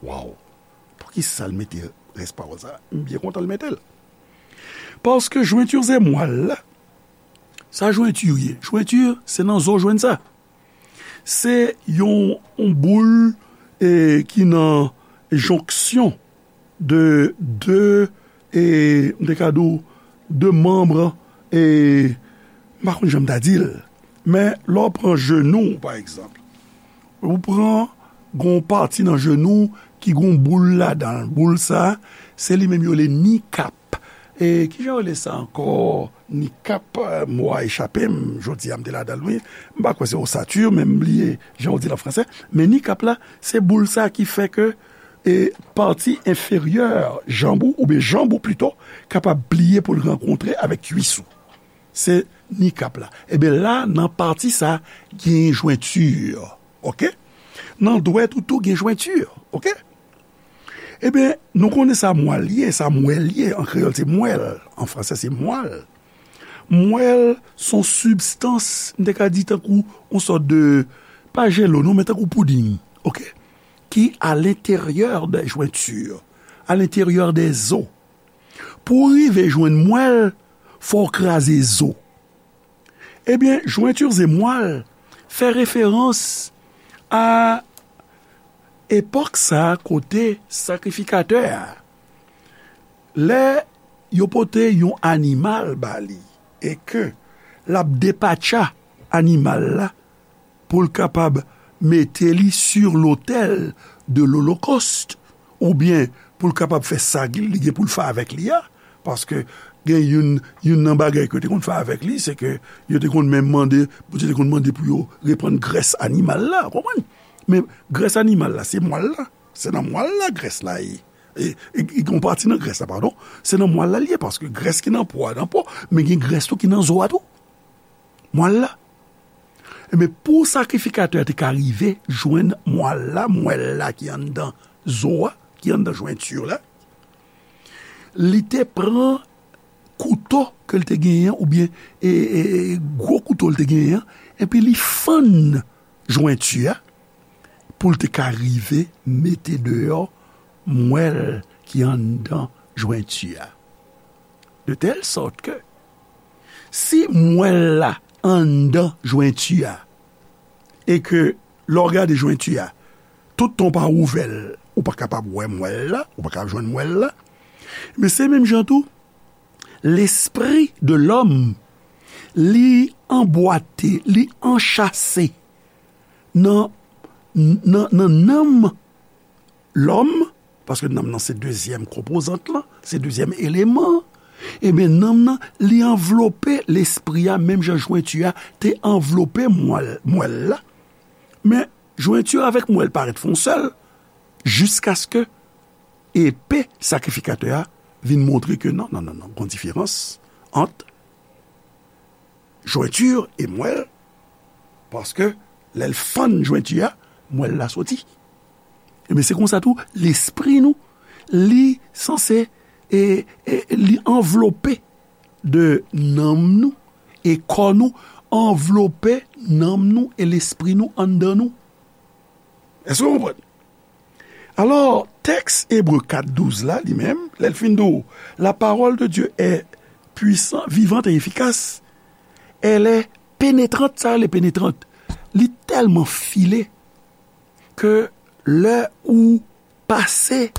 Waw. Poukisa l mete rès pawòl sa? M byen kontan l mete l. Paske jointures et moelle la, sa jointure ye? Jointure, se nan zo w jwenn sa. Se yon, yon boul, e, ki nan jonksyon de, de, e, m te ka di w, de manm, e, M pa konn jan m ta di l, men lè w pran jenou w, pa egzanp, ou pran gon pati nan jenou w ki gon boul ladan l. Boul sa a, se li menm yo rele kneecap. E kijan yo rele sa ankò? Kneecap, eh, mo a echape m, jodi a m te ladan l, wi. M pa kwè se ossature, men m bliye jan yo di l an fransè. Men kneecap la, se boul sa a ki fè ke, e, pati enferyè janm ou, oubyen janm ou pito, kapab pliye pou l rankontre avèk kwis ou. Se kneecap la. Ebyen la, nan pati sa, gen jwenti, oke? Nan dwèt ou tou gen jwenti, oke? Ebyen, nou konnen sa mwal ye, sa mwèl ye, an kreyòl se mwèl, an fransè se mwal. Mwèl se yon sibstans, m te ka di tankou yon sòt de, pa jelo non, men tankou pouding, oke? Ki à l'intérieur des jointures, à l'intérieur des os. Pou w rive jwenn mwèl, fò w kraze zo. Ebyen, jointures et moelle fè referans a epòk sa a kote sakrifikatè a, lè yo pote yon animal ba li e ke l ap depatcha animal la pou l kapab mete li sur l'autel de l'Holocauste, oubyen pou l kapab fè sa li gen pou l fè avèk li a, paske gen youn, youn nan bagay ke yo te konn fè avèk li, se ke yo te konn menm mande, Bondye te konn mande pou yo reprann grès animal la, w konprann? Men grès animal la, se mwal la, se nan mwal la grès la ye. E, e, e gen yon pati nan grès la, padon, se nan mwal la l ye, paske grès ki nan po a, nan po, men gen grès tou ki nan zo a tou. Mwal la. Ebyen, pou sakrifikatè a te ka rive jwenn mwal la, mwèl la ki anndan zo a, ki anndan jwenti la, li te pran kouto ke l te genyen, oubyen, e, e, e, gwo kouto l te genyen an, epi li fann jwenti a, pou l te ka rive mete deyò mwèl ki anndan jwenti a. De tèl sòt ke, si mwèl la anndan jwenti a, e ke lè w gade jwenti a, tout tan w pa ouvè l, ou pa kapab wè mwèl la, ou pa kapab jwenn mwèl la. Men se menm jan tou, lespri de lòm, li anbwate, li anchase nan, nan, nan nanm lòm, paske nanm nan se dezyèm konpozant lan, se dezyèm eleman an, ebyen, nanm nan, li anvlope lespri a, menm jan jwenti a te anvlope mwèl, mwèl la. Men, jwenti a avèk mwèl parèt fè yon sèl, jiskaske epe sakrifikatè a vin montre ke non, non, non, non, gon diferans ant jwenti e mwèl, paske lè l fann jwenti a, mwèl la soti. Ebyen, se konsa tou, lespri nou, li sanse, e, e, li anvlope de nanm nou, e kò nou anvlope nanm nou e lespri nou anndan nou. Èske w konprann? Alò, tèks Ebre kat douz la, li menm, lè l fin di w, la parole de Dieu est puissante, vivante et efficace, elle est pénétrante, sa rele pénétrante, li tèlman file ke lè ou pase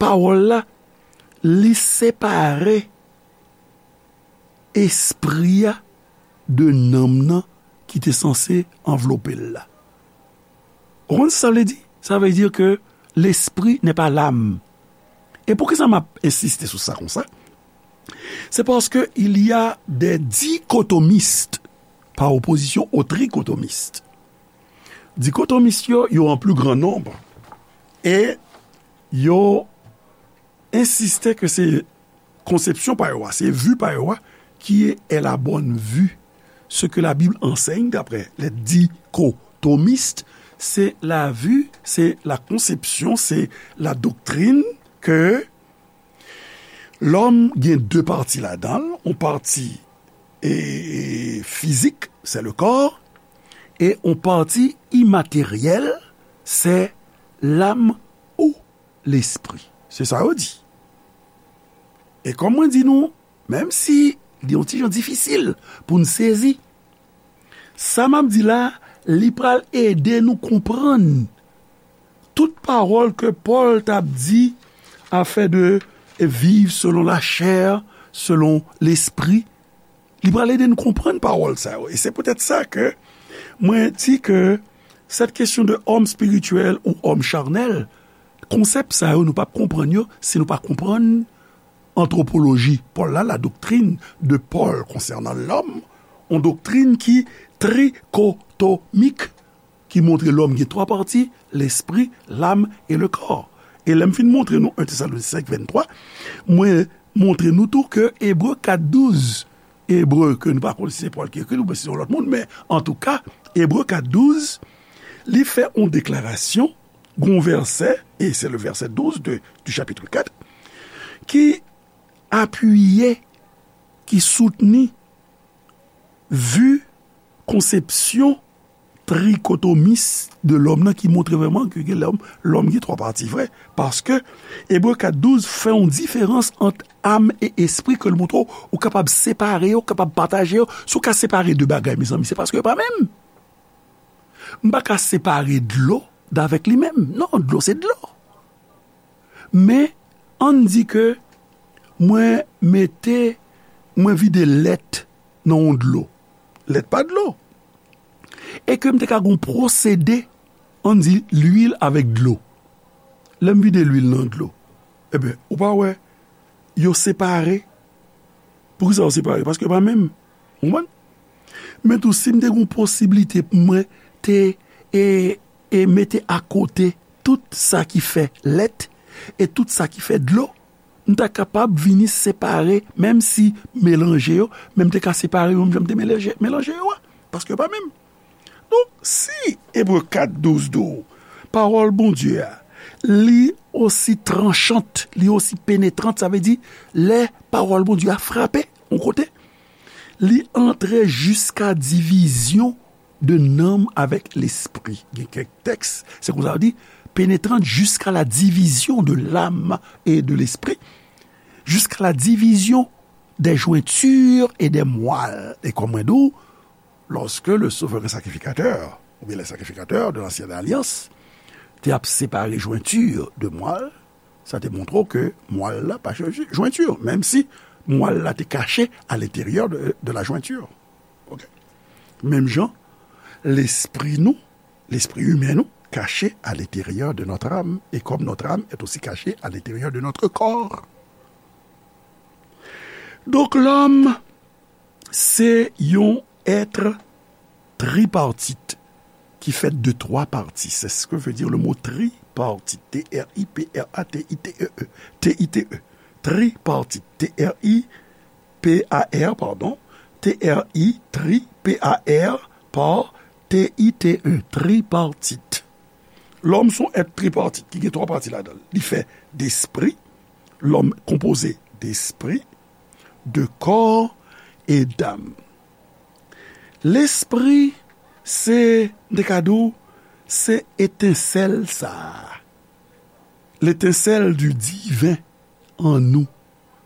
pawòl la, li separe espri a de nanm nan ki te sanse anvlope l la. Ou konn sa sa vle di? Sa vle di ke l'esprit n'est pas l'âme. E poukisa m ap ensiste sou sa konsa? C'est parce que il y a des dichotomistes par opposition aux trichotomistes. Dikotomis yo, yo an pli gran nonb. E yo ensiste ke se konsepsyon pa yo a, se vi pa yo a, qui est la bonne vue, ce que la Bible enseigne d'après les dichotomistes, c'est la vue, c'est la conception, c'est la doctrine que lòm gen de pati ladan l, yon pati, e, e, fizik, c'est le corps, e yon pati imateryèl, c'est l'âme ou lespri. Se sa yo di. E kòm mwen di nou, menm si li yon ti jan difisil pou n sezi, sa m ap di la, li pral ede nou konprann tout pawòl ke Pòl t ap di afè de viv selon la chair, selon lespri, Li pral ede n konprann pawòl sa yo. E se poutèt sa ke mwen di ke cette question de homme spirituel ou homme charnel, konsèp sa yo, nou p ap konprann yo si nou pa konprann antwopoloji Pòl la, la doctrine de Paul concernant l'homme, yon doktrin ki trikotomik, ki montre lòm gen twa pati, lespri, lam e le kò. E lè m fin montre nou en Tesalonisyen senk venntwa, mwen montre nou tou ke Ebre kat douz, Ebre ke nou pa konn si se Pòl ki ekri l oubyen si se yon lòt moun, men antouka, Ebre kat douz, li fè yon deklarasyon, gon vèsè, e se le vèsè douz de, du chapitre kat, ki apiye, ki soutni vi konsepsyon trikotomis de lòm nan ki montre vrèman ke gen lòm, lòm gen twa pati vre. Paske Ebre kat douz fè yon diferans ant am e espri ke l montre w, ou kapab separe yo, ou kapab pataje yo. Si w ka separe de bagay, mezanmi, se paske yo pa menm. M pa ka separe dlo davèk li menm. Non, dlo se dlo. Men, ann di ke mwen mete, mwen vide lèt nan yon dlo. Lèt pa dlo. E ke m te ka gon pwosede, ann di lwil avèk dlo. Lè m vide lwil nan dlo, ebyen, ou pa wè, yo separe. Poukisa yo separe? Paske yo pa menm. Ou konprann? Men tou, si m te gon posiblite pou mwen te, e, e mete akote tout sa ki fè lèt e tout sa ki fè dlo, m ta kapab vini separe, menm si melanje yo, men m te ka separe yo menm jan m te melanje, melanje yo a, paske yo pa menm. Donk, si Ebre kat douz di w, pawòl Bondye a, li osi tranchant, li osi penetrant, sa vle di, lè pawòl Bondye a frape yon kote, li antre jiska divizyon de nanm avèk lespri. Gen kèk tèks, se konsa yo di, pénétrant jusqu'à la division de l'âme et de l'esprit, jusqu'à la division des jointures et des moelles. E kòm mwen di w, lorsque le souverain sacrificateur, ou bien les sacrificateurs de l'ancienne alliance, te ap separe jwenti de mwal, sa te montre w ke mwal la pa chanje jwenti, menm si mwal la te kache à l'intérieur de, de la jointure. Ok. Menm jan, lespri nou, lespri imen nou, caché à l'intérieur de notre âme, et comme notre âme est aussi cachée à l'intérieur de notre corps. Donk, lòm, se yon èt tripartit ki fèt de twa pati. C'est ce que veut dire le mot tripartite. T R I P R A T I T E E. T I T E. Tripartite. T R I P A R, pardon. T R I, tri, P A R, par, T I T E, tripartit. Lòm se yon èt tripartit ki gen twa pati ladan l. Li fè despri, lòm konpoze despri, de kò e dam. Lespri, se, m te ka di w, se etensèl sa a. L'étincelle du divin en nous.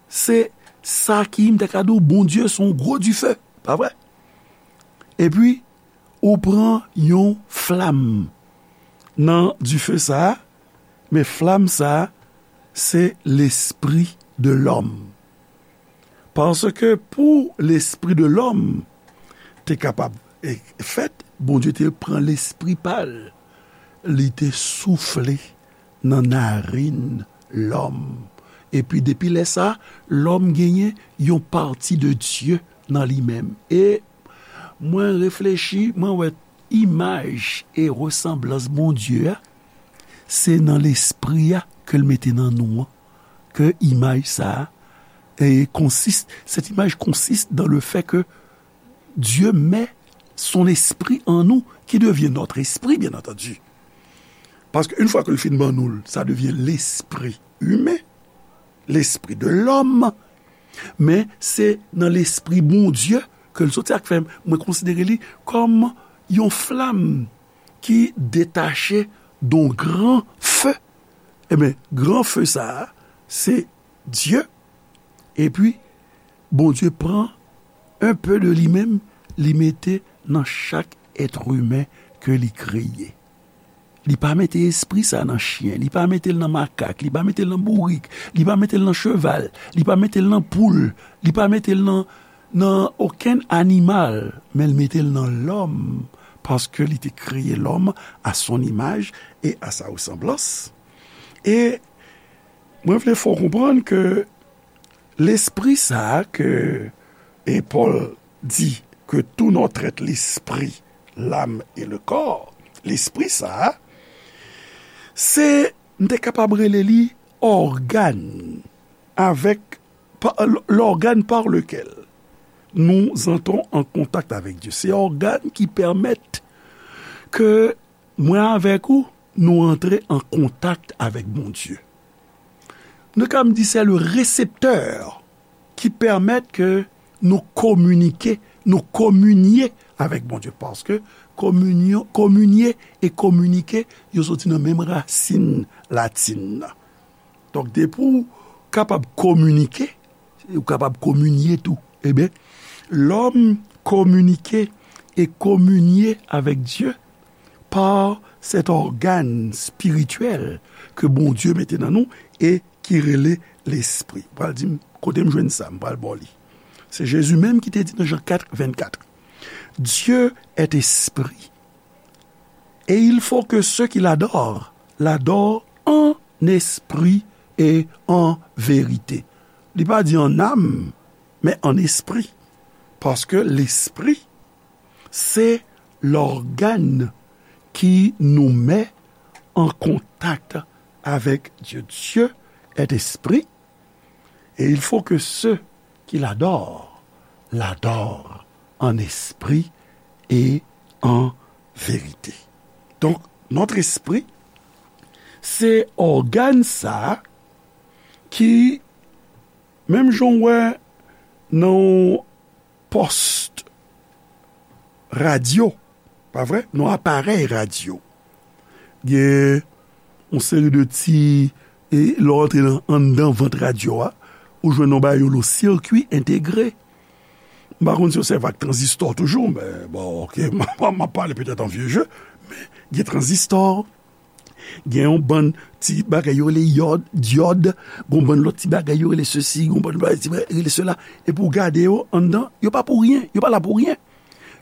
Se sa ki, m te ka di w, Bondye se yon gwo dife, pa vre? Epi, ou pran yon flam nan dife sa a, men flam sa a, se lespri de lòm. Paske pou lespri de lòm te kapab, e, fèt, Bondye te pran lespri pa l, li te soufle nan narin lòm. Epi depi lè sa a, lòm genyen yon pati de Dye nan li menm. E mwen reflechi, mwen wè imaj e resanblans Bondye a, se nan lespri a ke l mete nan nou an, ke imaj sa a, e, consiste, cette image consiste dans le fait que Dieu met son esprit en nous, qui devient notre esprit, bien entendu. Paske yon fwa ke l fin ban nou l, sa devyen lespri imen, lespri de lòm, men se nan lespri Bondye ke l soti. Sa k fè mwen konsidere li kòm yon flam ki detache de yon gran fe. Ebyen, gran fe sa a, se Dye. Epi, Bondye pran un peu de li menm, li mete nan chak èt imen ke li kreye. Li pa mete espri sa nan chen, li pa mete l nan makak, li pa mete l nan bourik, li pa mete l nan cheval, li pa mete l nan poul, li pa mete l nan nan okenn animal, men l mete l nan lòm, paske li te kreye lòm à son image et à sa ressemblance. E mwen vle fè w konprann ke lespri sa a ke, e Pòl di que tout notre être, l'esprit, l'âme et le corps, lespri sa a, se, m te kapab rele li ògàn avèk, pa, l-, l'organe par lequel nous entrons en contact avec Dieu. Se ògàn ki pèmèt ke mwen avèk ou, nou antre an kontak avèk Bondye. Nou ka di se le reseptè ki pèmèt ke nou kominike, nou kominye avèk Bondye. Paske kominyon, kominye e kominike, yo soti nan menm rasin latin nan. Donk, depi w kapab kominike, ou kapab kominye tou. Ebyen, lòm kominike e kominye avèk Dye pa sèt ògàn espirityèl ke Bondye mete nan nou e ki rele lespri. Ou pral di m, kote m jwenn sa, m pral ba w li. Se Jezi menm ki te di nan Jan kat vennkat, Dieu est esprit, et il faut que ceux qui l'adorent l'adorent en esprit et en vérité. Li pa di an nam, men an espri. Paske lespri, se lògàn ki nou met an kontak avèk Dye. Dieu est esprit, et il faut que ceux qui l'adorent l'adorent en esprit et en vérité. Donk, notre esprit, se ògàn sa a ki, menm jan w wè nan yon pòs radyo, pa vre? Nan yon aparèy radyo. Gen yon seri de ti, e lè w antre nan, anndan vant radyo a, ou jwenn yon bagay yo rele sirkwi entegre. M pa konn si yo sèvi ak tranzistò toujou, men bon, oke, m ap, m ap pale petèt an vye je, men gen tranzistò, gen yon bann ti bagay yo rele yòd, dyòd, gen yon bann lòt ti bagay yo rele sesi, gen yon bann bagay ti bagay rele sela. Epi w gade yo anndan, yo pa pou ryen, yo pa la pou ryen.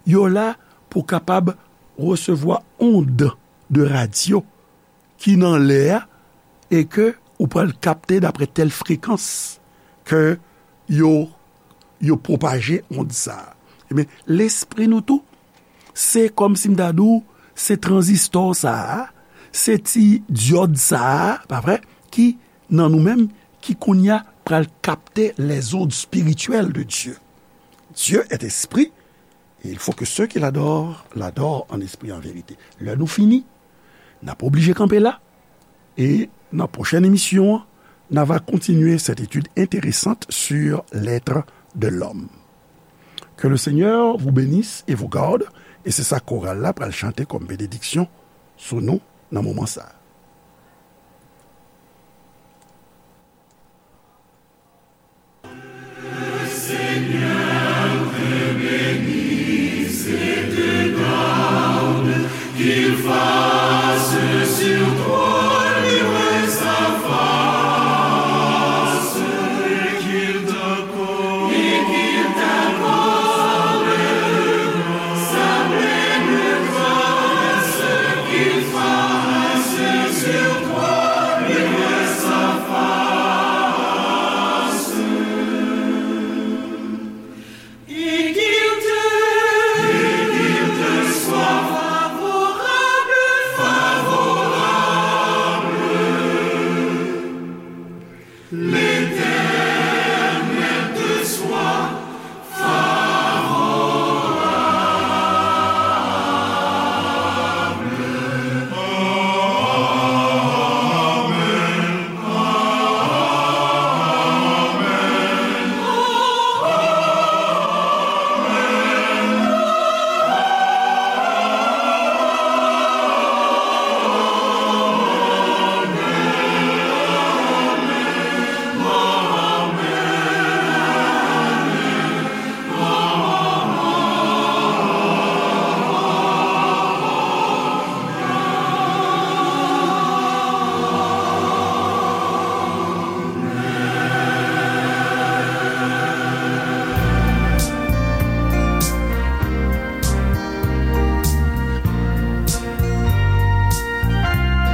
Yo la pou kapab resevwa ond de radyo ki nan lè a e ke ou pral kapte dapre tèl frekans ke yo, yo pwopaje ond sa a. Ebyen, lespri nou tou, se kòmsi m ta di w, se tranzistò sa a, se ti dyòd sa a, pa vre, ki nan nou menm, ki kounye a pral kapte les ondes spirituelles de Dieu. Dieu est esprit, et il faut que ceux qui l'adorent l'adorent en esprit et en vérité. Lè nou fini, n ap oblije kanpe la, e nan pwochèn emisyon an, n a va kontinye cette étude intéressante sur l'être de l'homme. Que le Seigneur vous bénisse et vous garde, e se sa koral la pral chante kòm benediksyon sou nou nan moman sa a.